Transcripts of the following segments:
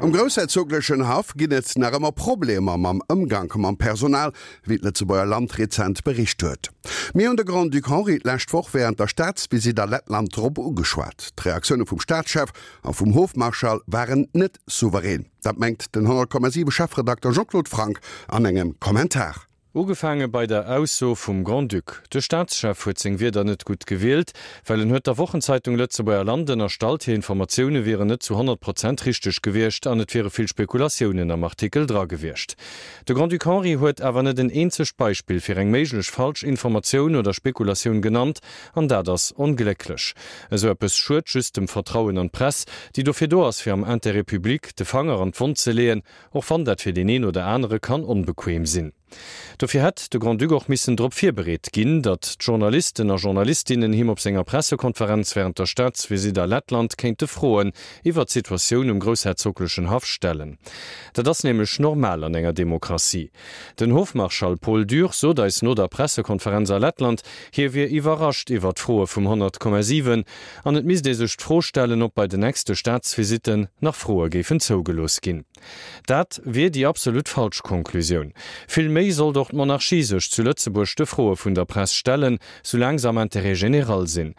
Um groussherzoglechen Haff ginn et nach ëmmer Problemer mam Ëmgank mam Personal, wéi d'Lëtzebuerger Land rezent bericht huet. Mir hunn de Grand-Duc Henri d'lescht Woch wärend der Staatsvisitt a Lettland drop ugeschwat. D'Reaktioune vum Staatschef a vum Hofmarschall waren net souverän. Dat mengt den 100,7 Chefredakter Jean-Claude Franck an engem Kommentar. Ugefaange bei der Ausso vum Grand-Duc. De Staatschef huet seng Wierder net gutt gewielt, well en huet der Wochenzeitung Lëtzebuerger Land ënnerstallt, hir Informatioune wieren net zu 100 Prozent richteg gewiescht an et wiere vill Spekulatiounen am Artikel dra gewiescht. De Grand-Duc Henri huet awer net en eenzegt Beispill fir eng méiglech falsch Informatioun oder Spekulatioun genannt, an dat ass onglécklech. Esou eppes schued just dem Vertrauen an d'Press, déi dofir do ass, fir am Intérêt public de Fanger an d'Wonn ze leeën, Och wann dat fir deen een oder anere kann onbequem sinn. Dofir hätt de Grand-Duc och missen drop virbereet ginn, datt d'Journalisten a Journalistinnen him op senger Pressekonferenz wärend der Staatsvisitt a Lettland kéinte Froen iwwert d'Situatioun um groussherzoglechen Haff stellen. Dat ass nämlech normal an enger Demokratie. Den Hofmarschall Paul Dürr sot eis no der Pressekonferenz a Lettland, hie wier iwwerrascht iwwert d'Froe vum 100,7 An et misst ee sech d'Fro stellen, ob bei den nächste Staatsvisitten nach Froe géifen zougelooss ginn. Dat wier déi absolut falsch Konklusioun. Vill méi sollt och d'Monarchie sech zu Lëtzebuerg de Froe vun der Press stellen, soulaang se am Intérêt général sinn.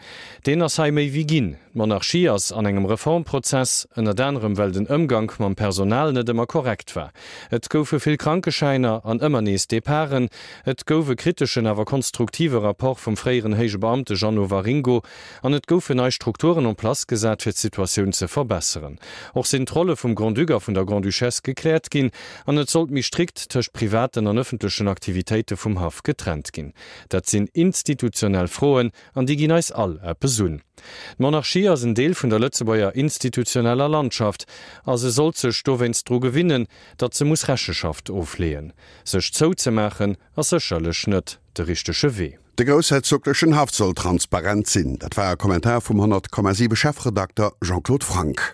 Deen ass hei méi wéi ginn. D'Monarchie ass an engem Reformprozess, ënnert anerem well den Ëmgank mam Personal net ëmmer korrekt war. Et goufe vill Krankeschäiner an ëmmer nees Departen. Et gouf e kriteschen awer konstruktive Rapport vum fréieren héije Beamte Jeannot Waringo An et goufen nei Strukturen en place gesat, fir d'Situatioun ze verbesseren. Och sinn d'Rolle vum Grand-Duc a vun der Grand-Duchesse gekläert ginn an et sollt méi strikt tëscht privaten an ëffentlechen Aktivitéite vum Haff getrennt ginn. Dat sinn institutionell Froen an déi ginn eis all eppes un. D'Monarchie ass en Deel vun der Lëtzebuerger institutioneller Landschaft a se sollt sech dowéinst dru gewinnen, datt se muss Recheschaft ofleeën. Sech zouzemaachen ass sécherlech net de richtege Wee. De groussherzoglechen Haff soll transparent sinn. Dat war e Kommentar vum 100,7 Chefredakter Jean-Claude Franck.